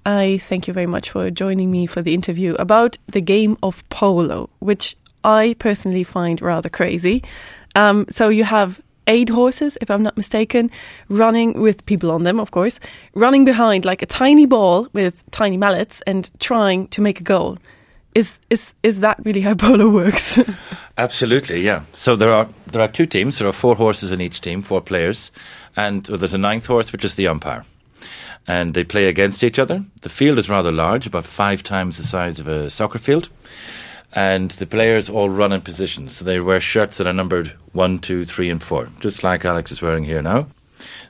I thank you very much for joining me for the interview about the game of polo, which I personally find rather crazy. Um, so you have eight horses, if I'm not mistaken, running with people on them, of course, running behind like a tiny ball with tiny mallets and trying to make a goal. Is, is, is that really how polo works? Absolutely, yeah. So there are, there are two teams. There are four horses in each team, four players, and there's a ninth horse, which is the umpire. And they play against each other. The field is rather large, about five times the size of a soccer field. And the players all run in positions. So they wear shirts that are numbered 1, 2, 3 and 4, just like Alex is wearing here now.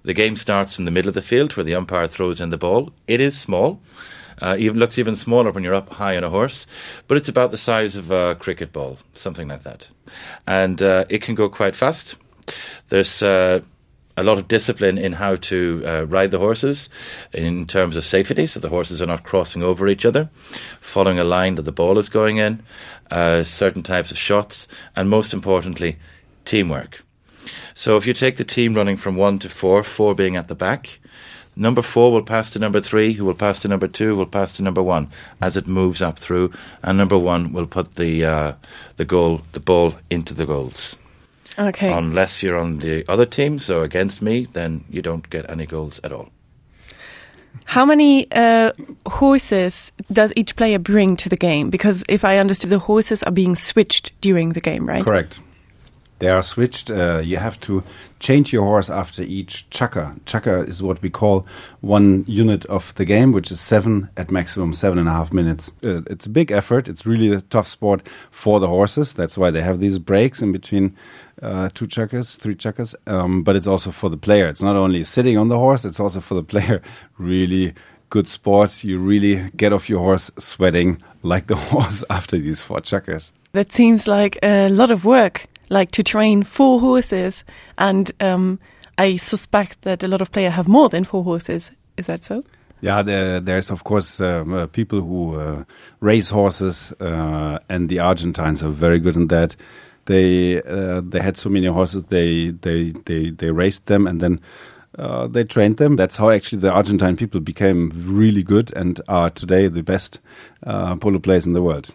The game starts in the middle of the field where the umpire throws in the ball. It is small. Uh, even looks even smaller when you're up high on a horse, but it's about the size of a cricket ball, something like that. And uh, it can go quite fast. There's uh, a lot of discipline in how to uh, ride the horses in terms of safety, so the horses are not crossing over each other, following a line that the ball is going in, uh, certain types of shots, and most importantly, teamwork. So if you take the team running from 1 to 4, 4 being at the back, number 4 will pass to number 3, who will pass to number 2, will pass to number 1 as it moves up through, and number 1 will put the, uh, the goal, the ball into the goals. Okay. Unless you're on the other team, so against me, then you don't get any goals at all. How many uh, horses does each player bring to the game? Because if I understood, the horses are being switched during the game, right? Correct. They are switched. Uh, you have to change your horse after each chukker. Chukker is what we call one unit of the game, which is 7 at maximum 7.5 minutes. Uh, it's a big effort. It's really a tough sport for the horses. That's why they have these breaks in between uh, two chukkers, three chukkers. Um, but it's also for the player. It's not only sitting on the horse, it's also for the player. Really good sport. You really get off your horse sweating like the horse after these four chukkers. That seems like a lot of work like to train four horses and um, I suspect that a lot of players have more than four horses. Is that so? Yeah, there, there's of course um, uh, people who uh, race horses uh, and the Argentines are very good in that. They, uh, they had so many horses, they, they, they, they raced them and then uh, they trained them. That's how actually the Argentine people became really good and are today the best uh, polo players in the world.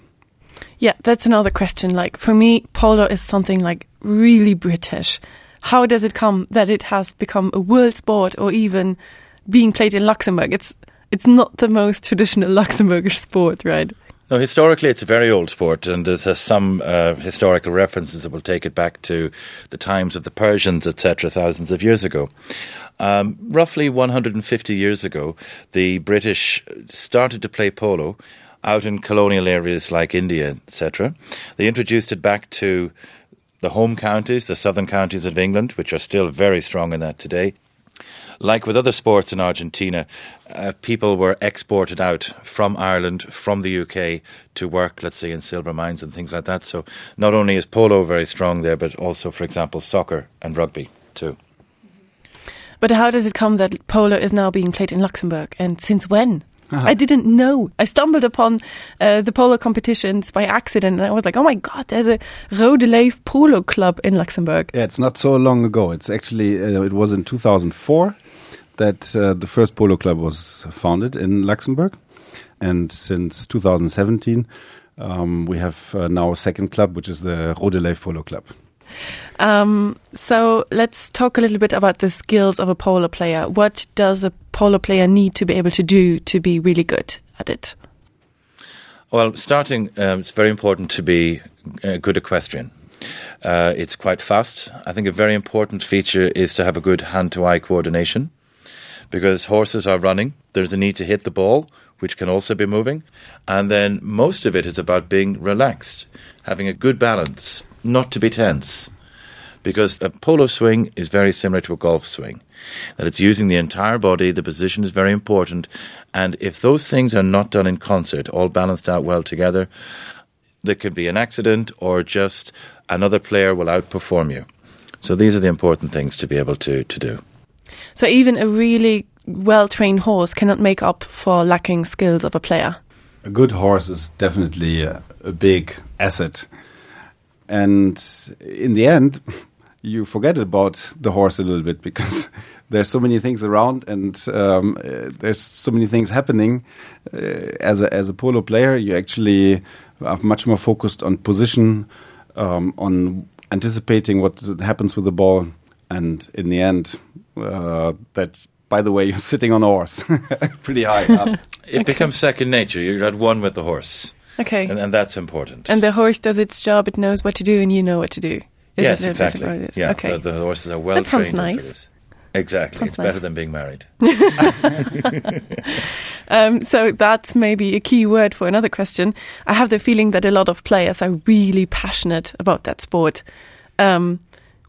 Yeah, that's another question. Like for me, polo is something like really British. How does it come that it has become a world sport or even being played in Luxembourg? It's it's not the most traditional Luxembourgish sport, right? No, historically it's a very old sport and there's uh, some uh, historical references that will take it back to the times of the Persians, etc., thousands of years ago. Um, roughly 150 years ago, the British started to play polo out in colonial areas like India, etc. They introduced it back to the home counties, the southern counties of England, which are still very strong in that today. Like with other sports in Argentina, uh, people were exported out from Ireland, from the UK to work, let's say in silver mines and things like that. So not only is polo very strong there, but also, for example, soccer and rugby too. But how does it come that polo is now being played in Luxembourg and since when? I didn't know. I stumbled upon uh, the polo competitions by accident and I was like, oh my god, there's a Rodeleif polo club in Luxembourg. Yeah, it's not so long ago. It's actually uh, it was in 2004 that uh, the first polo club was founded in Luxembourg. And since 2017, um, we have uh, now a second club, which is the Rodeleif Polo Club. Um, so let's talk a little bit about the skills of a polo player. What does a polo player need to be able to do to be really good at it? Well, starting, um, it's very important to be a good equestrian. Uh, it's quite fast. I think a very important feature is to have a good hand-to-eye coordination because horses are running. There's a need to hit the ball, which can also be moving. And then most of it is about being relaxed, having a good balance, not to be tense because a polo swing is very similar to a golf swing that it's using the entire body the position is very important and if those things are not done in concert all balanced out well together there could be an accident or just another player will outperform you so these are the important things to be able to to do so even a really well trained horse cannot make up for lacking skills of a player a good horse is definitely a, a big asset and in the end you forget about the horse a little bit because There's so many things around and um, uh, there's so many things happening. Uh, as, a, as a polo player, you actually are much more focused on position, um, on anticipating what happens with the ball and in the end uh, that by the way you're sitting on a horse pretty high up. It okay. becomes second nature you're at one with the horse okay and, and that's important and the horse does its job it knows what to do and you know what to do Is yes exactly yeah okay. the, the horses are well that sounds nice exactly sounds it's nice. better than being married um, so that's maybe a key word for another question I have the feeling that a lot of players are really passionate about that sport um,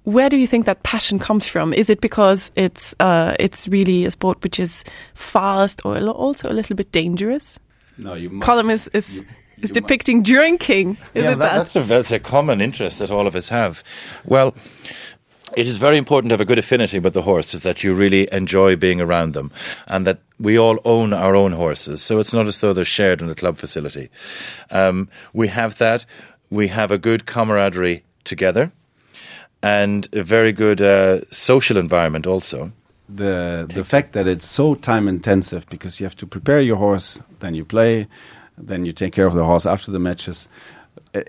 where do you think that passion comes from? Is it because it's uh, it's really a sport which is fast or also a little bit dangerous? No, you must, Column is, is, you, is you depicting drinking. Is yeah, it that? That's, a, that's a common interest that all of us have. Well, it is very important to have a good affinity with the horses that you really enjoy being around them and that we all own our own horses so it's not as though they're shared in the club facility um, we have that we have a good camaraderie together and a very good uh, social environment also. The the fact that it's so time intensive because you have to prepare your horse, then you play, then you take care of the horse after the matches.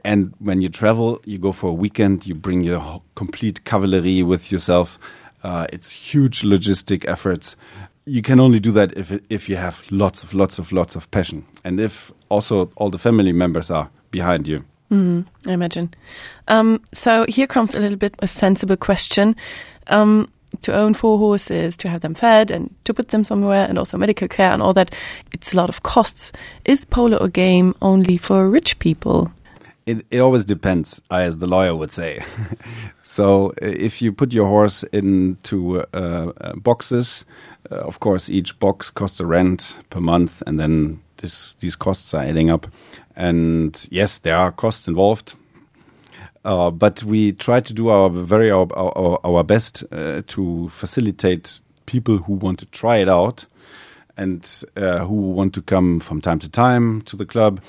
And when you travel, you go for a weekend, you bring your complete cavalry with yourself. Uh, it's huge logistic efforts. You can only do that if, if you have lots of lots of lots of passion and if also all the family members are behind you. Mm, I imagine. Um, so here comes a little bit a sensible question. Um, to own four horses, to have them fed and to put them somewhere and also medical care and all that, it's a lot of costs. Is polo a game only for rich people? It, it always depends, as the lawyer would say. so if you put your horse into uh, uh, boxes, uh, of course each box costs a rent per month and then this, these costs are adding up. And yes, there are costs involved. Uh, but we try to do our very our, our, our best uh, to facilitate people who want to try it out and uh, who want to come from time to time to the club.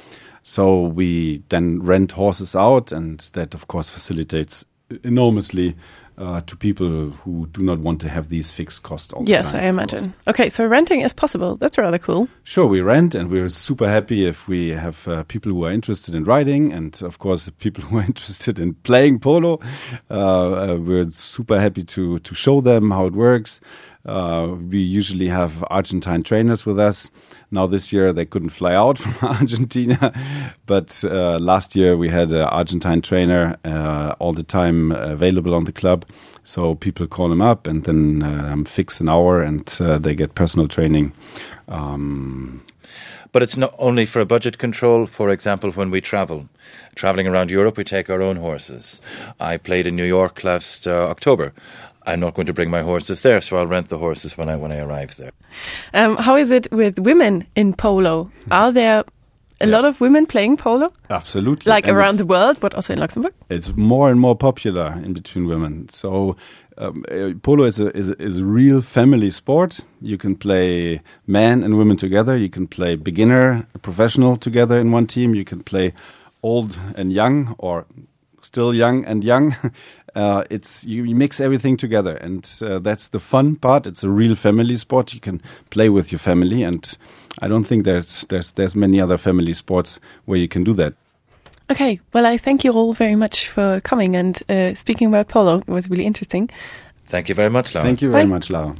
So we then rent horses out, and that of course facilitates enormously uh, to people who do not want to have these fixed costs all yes time, I imagine okay so renting is possible that's rather cool sure we rent and we're super happy if we have uh, people who are interested in riding and of course people who are interested in playing polo uh, uh, we're super happy to to show them how it works uh, we usually have Argentine trainers with us now this year they couldn't fly out from Argentina but uh, last year we had an Argentine trainer uh, all the time available on the club so people call him up and then um, fix an hour and uh, they get personal training um, but it's not only for a budget control for example when we travel traveling around Europe we take our own horses I played in New York last uh, October I'm not going to bring my horses there so I'll rent the horses when I when I arrive there um, how is it with women in polo are there a yeah. lot of women playing polo absolutely like and around the world but also in Luxembourg it's more and more popular in between women so um, uh, polo is a, is, a, is a real family sport you can play men and women together you can play beginner professional together in one team you can play old and young or still young and young uh, it's you, you mix everything together and uh, that's the fun part it's a real family sport you can play with your family and I don't think there's there's there's many other family sports where you can do that okay well I thank you all very much for coming and uh, speaking about polo it was really interesting thank you very much Laura. thank you very Bye. much Laura.